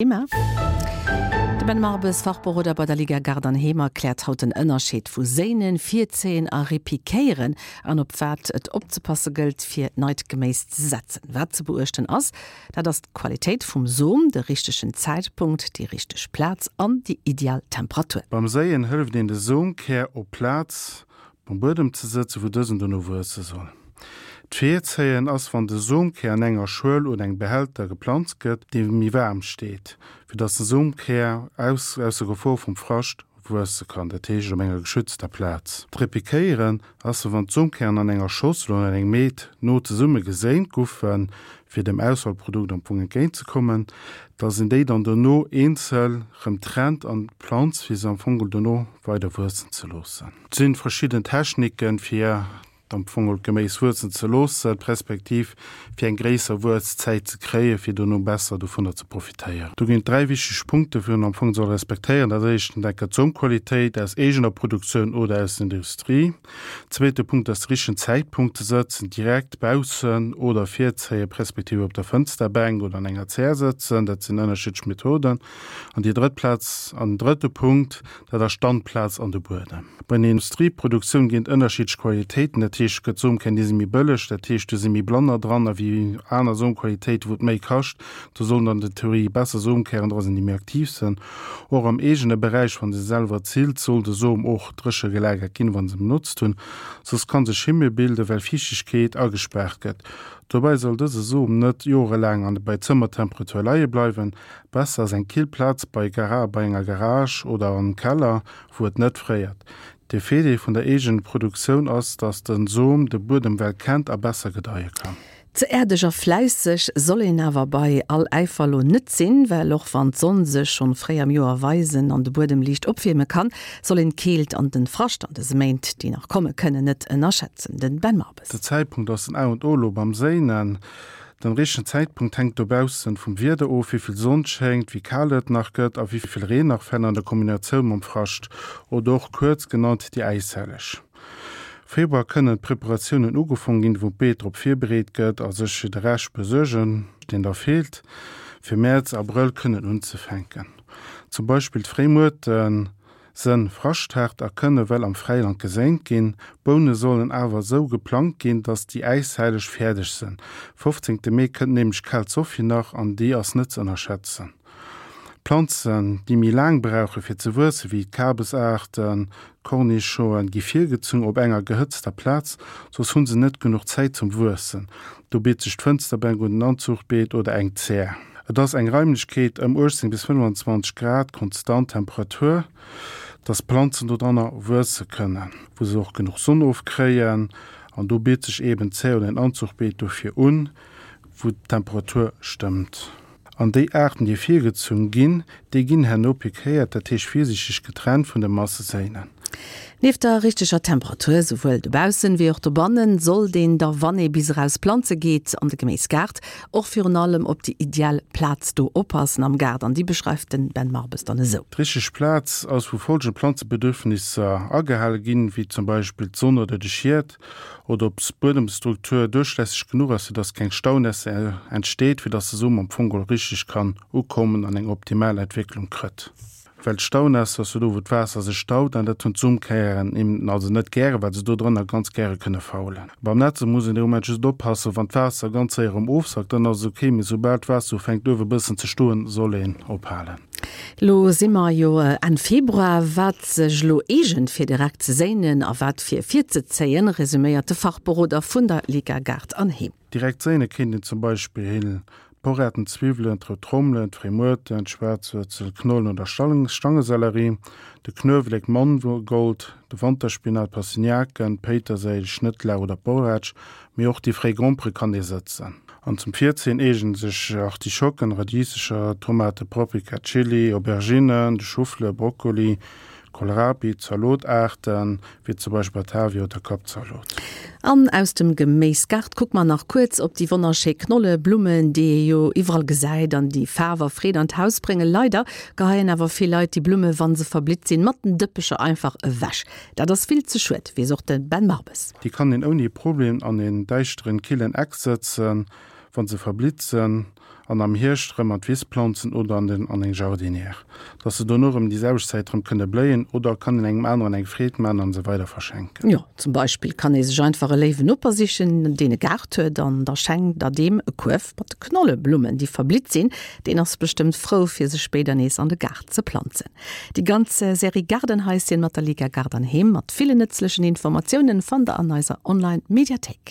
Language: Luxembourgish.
Thema. De Ben Marbes, Fachberoder bei der Liga Gaart an Heem, erkläert haut den Ënnerscheed vu Séinen, Virzéien a Repiquéieren an op wat et opzepasse gëllt, fir neit Geméis ze setzen. Wat ze beuechten ass, dat ass d'Qualitéit vum Som, de richtegen Zäitpunkt, déi richteg Plaz an déi ideal Temperatur. Beim Séien hëlleft een de Somkär op Plaz Um Buedem ze sëtzen, wou dësen dono wuesse soll. D'Virzéien ass, wann de Somkär an enger Schuel oder engem Behälter geplanzt gëtt, dee méi waarm steet, fir datt de Somkär aus ausser Gefor vum Frascht wuesse kann, dat heescht op enger geschützter Plaz. D'Repiquéieren ass, wann d'Somkären an enger Schossel oder an engem Meet no zesumme geséint guffen, fir dem Ausfallprodukt am Fong entgéint ze kommen, dass een déi dann dono eenzel rëm trennt an planzt, fir se am Fong dono weider wuessen ze loossen. Et sinn verschidden Techniken fir am Fong d'Geméis wuessen ze loossen, respektiv fir eng gréisser Wuesszäit ze kréien, fir dono besser dovunner ze profitéieren. Do ginn et 3 wichteg Punkte wou een am Fong soll respektéieren. Dat éischten enker d'Somqualitéit aus eegener Produktioun oder aus der Industrie. Zweete Punkt ass de richtegen Zäitpunkt ze sëtzen, direkt baussen oder virzéien, respektiv op der Fënsterbänk oder an enger Zär sëtzen. Dat sinn ënnerschiddlech Methoden. An déi drëtt Plaz an den drëtte Punkt, dat ass d'Standplaz an de Buedem. Bei der Industrieproduktioun ginn et ënnerschiddlech Qualitéiten, dat heescht, et gëtt Somkär, déi si méi bëlleg, dat heescht, do si méi Blanner dran a wéi aner Somqualitéiten, wou et méi kascht. Do sollen an der Theorie besser Somkären dra sinn, déi méi aktiv sinn. Och am eegene Beräich, wa se selwer zillt, soll de Som och dréche gelagert ginn, wa se benotzt hunn, soss ka sech Schimmel bilden, well Fiichtegkeet agespaart gëtt. Dobäi soll dëse Som net jorelaang an bei Zëmmertemperatur leie bleiwen. Besser ass eng kill Plaz bei bei enger Garage oder am Keller, wou et net fréiert. De Virdeel vun der eegenen Produktioun ass, dass den Som de Buedem well kennt a besser gedeie kann. Ze äerdeg a fläisseg soll een awer bei all Äifer lo net sinn, well och wann d'Sonn sech schonn fréi am Joer weisen an de Buedem liicht opwierme kann, soll een d'Keelt an den Frascht an dëse Méint, déi nach komme kënnen, net ënnerschätzen. Den Ben Marbes. De Zäitpunkt ass den A und O lo beim Séinen. Den richtegen Zäitpunkt hänkt dobaussen vum Wieder of, wéivill Sonn schéngt, wéi kal et nach gëtt a wéivill Reen nach fält an der Kombinatioun mam Frascht oder och kuerz genannt déi Äishelleg. Februar kënnen d'Preparatiounen ugefong ginn, wou d'Beet drop virbereet gëtt a sech fir de Rescht besuergen, deen da feelt, fir Mäerz, Abrëll kënnen unzefänken. Zum Beispill d'Fréimuerte sënn fraschthaart a kënne well am Fräiland geséint ginn. D'Boune sollen awer esou geplangt ginn, dass déi Äishelleg fäerdeg sënn. 15 Mee kënnt nämlech d'kal Sophie nach an déi ass net ze ënnerschätzen. Planzen, déi méi laang brauche fir ze wuessen, wéi d'Kabesaarten, d'Cornichoen, gi virgezunn op enger gehëtzter Plaz, soss hu se net genuch Zäit zum Wuessen. Do bitt sech d'Fënsterbänk un, den Anzuchbeet oder eng Zär. Et ass eng Raimlechkeet ëm 18 bis 25 Grad konstant Temperatur, dass d'Planzen dodranner wuesse kënnen, wou se och genuch Sonn ofkréien. An do bitt sech eben d'Zär oder en Anzuchbeet dofir un, wou d'Temperatur stëmmt. An déi Aarten, déi virgezunn ginn, déi ginn herno piquéiert, dat heescht virsiichteg getrennt vun de Masseséinen. Nieft der richteger Temperatur, souwuel dobaussen wéi och dobannen, sollt een da, wann ee bis eraus planze geet an de Geméisgaart, och virun allem op déi ideal Plaz do oppassen am Gaart. An déi beschreift den Ben Marbes dann esou. D'richteg Plaz ass, wou folgend Planzebedürfnisser agehale ginn, wéi zum Beispill d'Sonn oder de Schiet. oder ob d'Buedemstruktur duerchlässeg genuch ass, fir dass keng Staunässe entsteet, fir dass de Som am Fong geholl richteg kann ukommen an eng optimal Entwécklung krëtt. Well d'Staunässe ass jo do, wou d'Waasser sech staut, an dat hunn d'Somkären eben also net gären, well se do drënner ganz gäre kënne faulen. Beim Nätze muss een de Moment just oppassen, wann d'Waasser ganz séier erëm ofsackt, dann ass et ok, mee soubal d'Waasser ufänkt uewe bëssen ze stoen, soll een ophalen. Lo si mer jo Enn Februar. Wat sech elo eegent fir direkt ze séinen a wat fir virzezéien, resuméiert de Fachberoder vun der Liga Gaart an Heem. Direkt séine kéint een zum Beispill Poretten, Zwiwwelen, d'rout Trommelen, d'Fréimuerten, d'Schwaarzwuerzel, Knollen oder Stangesellerie, de Knuewelek, d'Mangold, de Wanterspinat, d'Pastinaken, d'Péiterséil, Schnëttlauch oder d'Borratsch. Mee och déi fréi Grompere kann ee sëtzen. An zum Virzéien eegnen sech Artischocken, Radiesecher, Tomate, Paprika, Chili, Auberginnen, de Choufleur, Brokkoli, Kohlrabi, Zalotaarten, wéi zum Beispill Batavia oder Kappzalot. An aus dem Geméisgaart kucke mer nach kuerz op déi wonnerschéi Knolle Blummen, déi ee jo iwwerall gesäit an déi Faarf a Freed an d'Haus bréngen. Leider geheien awer vill Leit déi Blumme, wa se verblitt sinn, mat den Dëppecher einfach ewech. Dat ass vill ze schued, weess och de Ben Marbes. Déi kann een ouni Problem an een däischteren, killen Eck sëtzen, wann se verblitt sen. An am Hierscht rëm an d'Wiss planzen oder an den an eng Jardinière, dass se dono rëm déi selwecht Zäit rëm kënne bléien oder kann een engem aneren eng Freed man an se weider verschenken. Jo, zum Beispill kann ee sech einfach e léiwen Noper sichen, deen e Gaart huet an da schenkt der deem e Kuerf mat Knolleblummen, déi verblitt sinn. Deen ass bestëmmt frou fir se spéider nees an de Gaart ze planzen. Déi ganz Serie Gaardenhaischen mat der Liga Gaart an Heem mat villen nëtzlechen Informatiounen fannt der an eiser Online Mediathéik.